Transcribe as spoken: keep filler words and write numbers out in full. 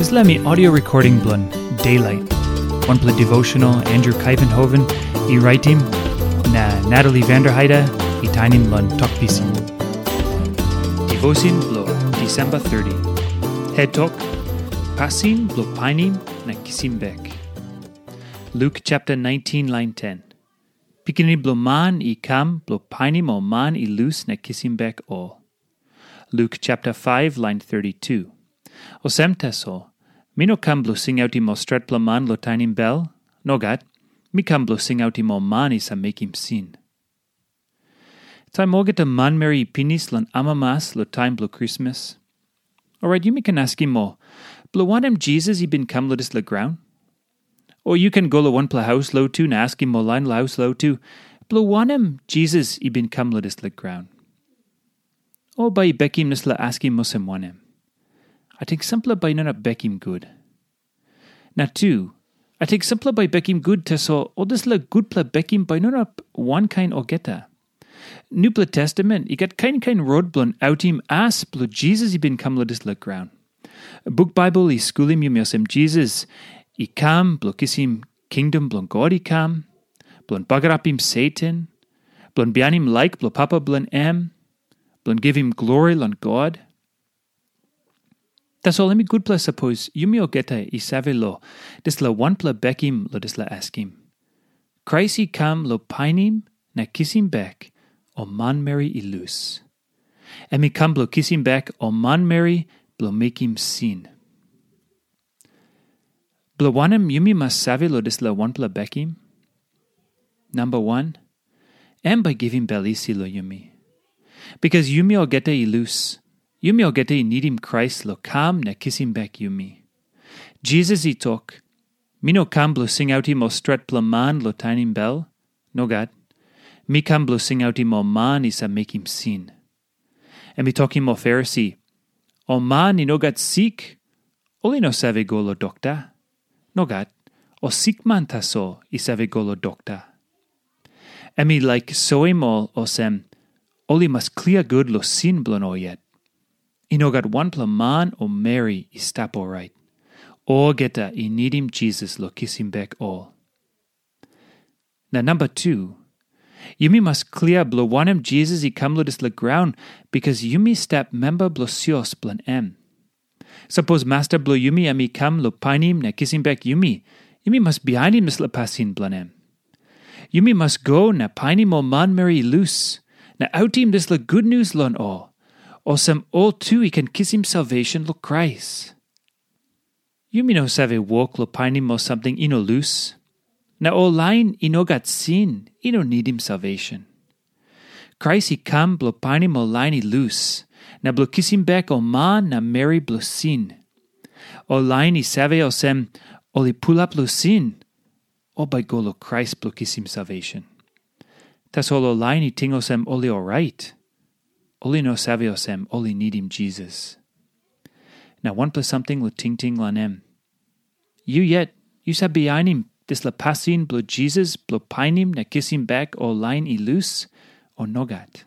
Dispela mi audio recording bilong Daylight, wanpela devotional Andrew Kaivenhoven i raitim, na Natalie Vanderheide i tainim long Tok Pisin. Devotion bilong December thirty. Het tok, pasin bilong painim na kisim bek. Luk chapter nineteen, lain ten. Pikinini bilong Man i kam bilong painim ol man i lus na kisim bek ol. Luk chapter five, lain thirty-two. Olsem tasol, mi no kam bilong singautim ol stretpela man long tainim bel. Nogat, mi kam bilong singautim ol man i save mekim sin. Taim olgeta manmeri i pinis long amamas long taim bilong Krismas, orait yumi ken askim ol, bilong wanem Jisas i bin kam long dispela graun? O yu ken go long wanpela haus lotu na askim ol lain long haus lotu, bilong wanem Jisas i bin kam long dispela graun? O bai i bekim dispela askim olsem wanem? Ating sampela bai i no inap bekim gut. Na tu, ating sampela bai i bekim gut, tasol ol dispela gutpela bekim bai i no inap wankain olgeta. Nupela Testamen i gat kain kain rot bilong autim as bilong Jisas i bin kam long dispela graun. Buk Baibel i skulim yumi olsem Jisas i kam bilong kisim kingdom bilong God i kam, bilong bagarapim Satan, bilong bihainim laik bilong Papa bilong em, bilong givim glori long God. Tasol em i gutpela sapos yumi olgeta i save long dispela wanpela bekim long dispela askim. Krais i kam long painim na kisim bek ol manmeri i lus. Em i kam bilong kisim bek ol manmeri bilong mekim sin. Bilong wanem yumi mas save long dispela wanpela bekim? Namba wan, em bai givim bel isi long yumi. Bikas yumi olgeta i lus, yumi olgeta i nidim Krais long kam na kisim bek yumi. Jisas i tok, mi no kam bilong singautim ol stretpela man long tainim bel. Nogat. Mi kam bilong singautim ol man i save mekim sin. Em i tokim ol Farisi, ol man i no gat sik, ol i no save go long dokta. Nogat, ol sikman tasol i save go long dokta. Em i laik soim ol olsem, ol i mas klia gut long sin bilong ol yet. I no gat wanpela man o meri i stap orait. Olgeta i nidim Jisas long kisim bek ol. Na namba tu, yumi mas klia bilong wanem Jisas i kam long dispela graun, bikas yumi stap memba bilong sios bilong em. Sapos masta bilong yumi em i kam long painim na kisim bek yumi, yumi mas bihainim dispela pasin bilong em. Yumi mas go na painim ol manmeri i lus, na autim dispela gutnius long ol, olsem ol tu i ken kisim salvesen long Krais. Yumi no save wok long painim ol samting i no lus. Na ol lain i no gat sin i no nidim salvesen. Krais i kam bilong painim ol lain i lus, na bilong kisim bek ol man na meri bilong sin. Ol lain i save olsem, ol i pulap long sin, ol bai i go long Krais bilong kisim salvesen. Tasol ol lain i ting olsem ol i orait, ol i no save olsem ol i nidim Jisas. Na wanpela samting long tingting long em. Yu yet, yu save bihainim dispela pasin bilong Jisas bilong painim na kisim bek ol lain i lus, o nogat?